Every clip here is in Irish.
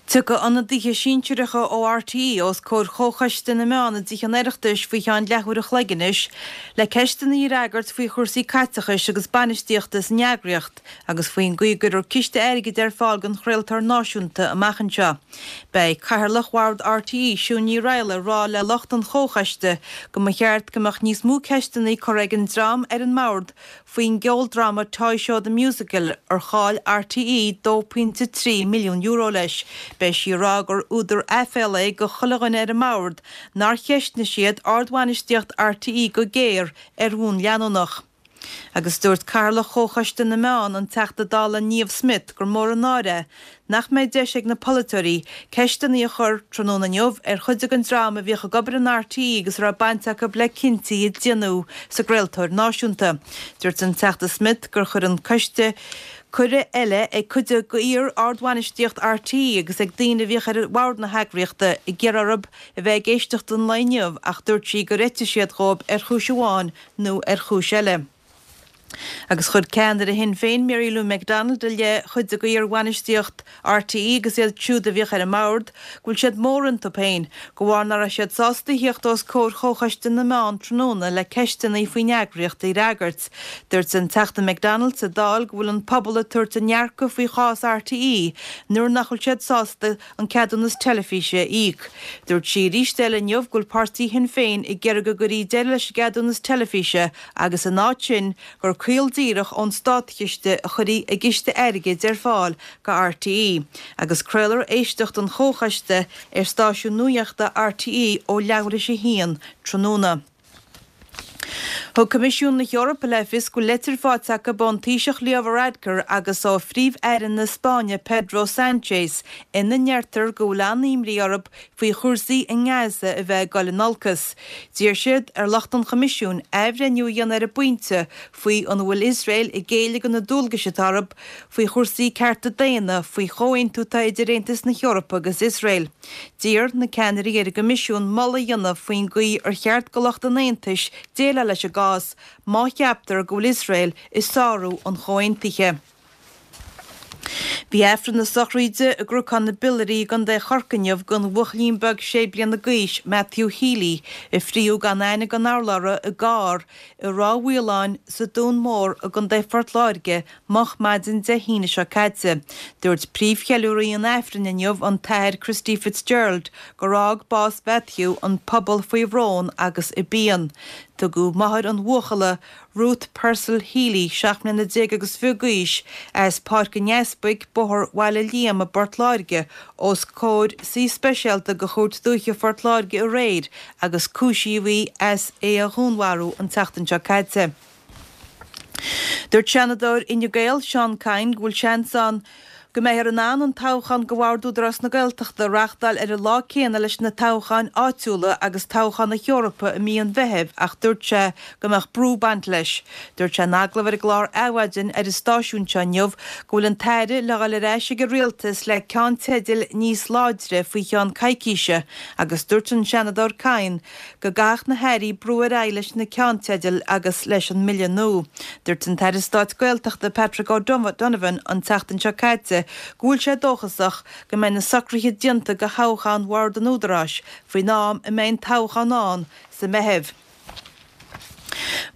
Tiocfaidh ionadaithe sinsearacha ó RTÉ os comhair Chomhchoiste na Meán i dTithe an Oireachtais faoi cheann leathuair a chloig anois le ceisteanna a fhreagairt faoi chúrsaí caiteachais agus bainistíochta san eagraíocht agus faoin gcaoi a gcuirfear ciste airgid ar fáil don chraoltóir náisiúnta amach anseo. Beidh Cathaoirleach Bhord RTÉ, Siún Ní Raghallaigh, ag rá le lucht an Chomhchoiste go mba cheart go mbeadh níos mó ceisteanna curtha ag an dream ar an mbord faoin gceoldráma Toy Show The Musical ar chaill RTÉ €2.3 milliún leis. Beidh sí ag rá gur údar aiféala é do chuile dhuine ar an mbord nár cheistnigh siad ardbhainistíocht RTÉ go géar ar bhonn leanúnach. Agus dúirt Cathaoirleach Chomhchoiste na Meán, an Teachta Dála Niamh Smyth, gur mór an náire é nach mbeidh deis ag na polaiteoirí ceisteanna a chur tráthnóna inniu ar chuid den dream a bhíodh ag obair in RTÉ agus a raibh baint acu le cinntí a déanadh sa gcraoltóir náisiúnta. Dúirt an Teachta Smyth gur chuir an coiste cuireadh eile ag cuid d'iar-ardbhainistíocht RTÉ agus ag daoine a bhíodh ar bhord na heagraíochta ag iarraidh orthu a bheith ag éisteacht an lae inniu ach dúirt sí gur eitigh siad dhóibh ar chúis amháin nó ar chúis eile. Agus chuir ceannaire Shinn Féin Mary Lou McDonald i leith chuid de iar-bhainistíocht RTÉ agus iad siúd a bhíodh ar an mbord go bhfuil siad mór iontu féin de bharr nach raibh siad sásta a thíocht os comhair Chomhchoiste na Meán tráthnóna le ceisteanna faoin eagraíocht a fhreagairt. Dúirt an Teachta McDonald sa Dáil go bhfuil an pobal ag tabhairt a ndearcadh faoi chás RTÉ nuair nach bhfuil siad sásta an ceadúnas teilifíse a íoc. Dúirt sí arís eile inniu go bhfuil páirtí Shinn Féin ag iarraidh go gcuirfí deireadh leis an gceadúnas teilifíse agus in áit sin gur caol díreach ón státchiste a chuirfí i gciste airgid ar fáil go RTÉ agus craolfar éisteacht an Chomhchoiste ar stáisiún nuachta RTÉ ó leathuair théis a haon tráthnóna. Thug Coimisiún na hEorpa le fios go bhfuil leitir faighte acu ón Taoiseach Leo Varadkar agus ó Phríomh-Aire na Spáinne Pedro Sanchez ina ndeirtear go bhfuil an-imní orthu faoi chúrsaí i nGaza a bheith ag dul in olcas. D'iarr siad ar lucht an Choimisiúin athbhreithniú a dhéanamh ar an bpointe faoi an bhfuil Iosrael ag géilleadh do na dualgais atá orthu faoi chúrsaí cearta daonna faoi chomhaontú atá idir Aontas na hEorpa agus Iosrael. D'iarr na ceannairí ar an gCoimisiún moladh a dhéanamh faoin gcaoi ar cheart do lucht an Aontais déileáil leis an gcás má cheaptar go bhfuil Iosrael ag sárú an chomhaontaithe. Bhí Aifreann na sochraide i gCnocán na bPiollaerí i gContae Chorcaí inniu don bhuachaillín beag sé bliana d'aois, Matthew Healy, a fríodh gan aithne gan urlabhra i gcarr i Ráth Mhaoláin sa Dún Mór i gContae Phort Láirge moch maidin Dé hAoine seo caite. Dúirt príomhcheiliúraí an Aifrinn inniu, an tAthair Christy Fitzgerald, gur fhág bás Mhatthew an pobal faoi bhrón agus i bpian. Tugadh máthair an bhuachalla, Ruth Purcell Healy, 17 mbliana agus fiche d'aois, as Páirc an Easpaig, Bóthar Bhaile Liam i bPort Láirge, os comhair suí speisialta de Chúirt Dúiche Phort Láirge aréir agus cúisíodh í as é a dhúnmharú an tseachtain seo caite. Dúirt Seanadóir Fhine Gael, Seán Kyne, go bhfuil seans ann go mbeifear in ann an toghchán do Bhord Údarás na Gaeltachta a reáchtáil ar an lá céanna leis na toghcháin áitiúla agus toghchán na hEorpa i mí an Mheithimh ach dúirt sé go mbeadh brú ag baint leis. Dúirt sé in agallamh ar an gclár Adhmhaidin ar an stáisiún seo inniu go bhfuil an tAire le dhul ar ais ag an Rialtas le ceannteidil níos láidre faoi cheann coicíse agus dúirt an Seanadóir Kyne go gcaithfeadh na hairí brú ar aghaidh leis na ceannteidil agus leis an mbille nua. Dúirt an tAire Stáit Gaeltachta Patrick O'Donovan an tseachtain seo caite go bhfuil sé dóchasach go mbeidh na socruithe déanta do thoghchán Bhord an Údaráis faoin am a mbeidh an toghchán ann sa Meitheamh.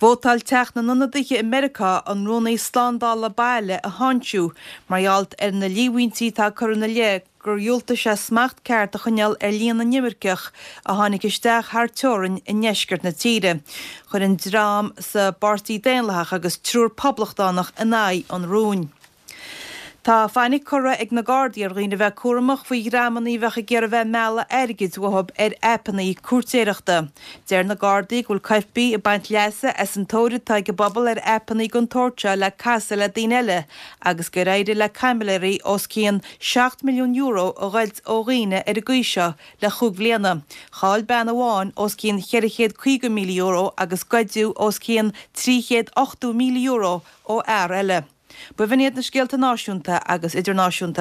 Vótáil Teach na nIonadaithe i Meiriceá an Rúnaí Slándála Baile a tháinseamh mar gheall ar na líomhaintí atá curtha ina leith gur dhiúltaigh sé smacht ceart a choinneáil ar líon na n-imirceach a tháinig isteach thar teorainn i ndeisceart na tíre. Chuir an dream sa bPáirtí Daonlathach agus triúr Poblachtánach in aghaidh an rúin. Tá fainic curtha ag na Gardaí ar dhaoine a bheith cúramach faoi dhreamanna a bheadh ag iarraidh bheith ag mealladh airgid uathu ar aipeanna cúirtéireachta. Deir na Gardaí go bhfuil coirpigh ag baint leasa as an tóir atá ag an bpobal ar aipeanna den tsórt seo le casadh le daoine eile agus gur éirigh le caimiléirí os cionn €7 milliún a ghoid ó dhaoine ar an gcaoi seo le chúig bhliana. Chaill bean amháin os cionn €450,000 agus goideadh os cionn €380,000 ó fhear eile. B'in iad na scéalta náisiúnta agus idirnáisiúnta.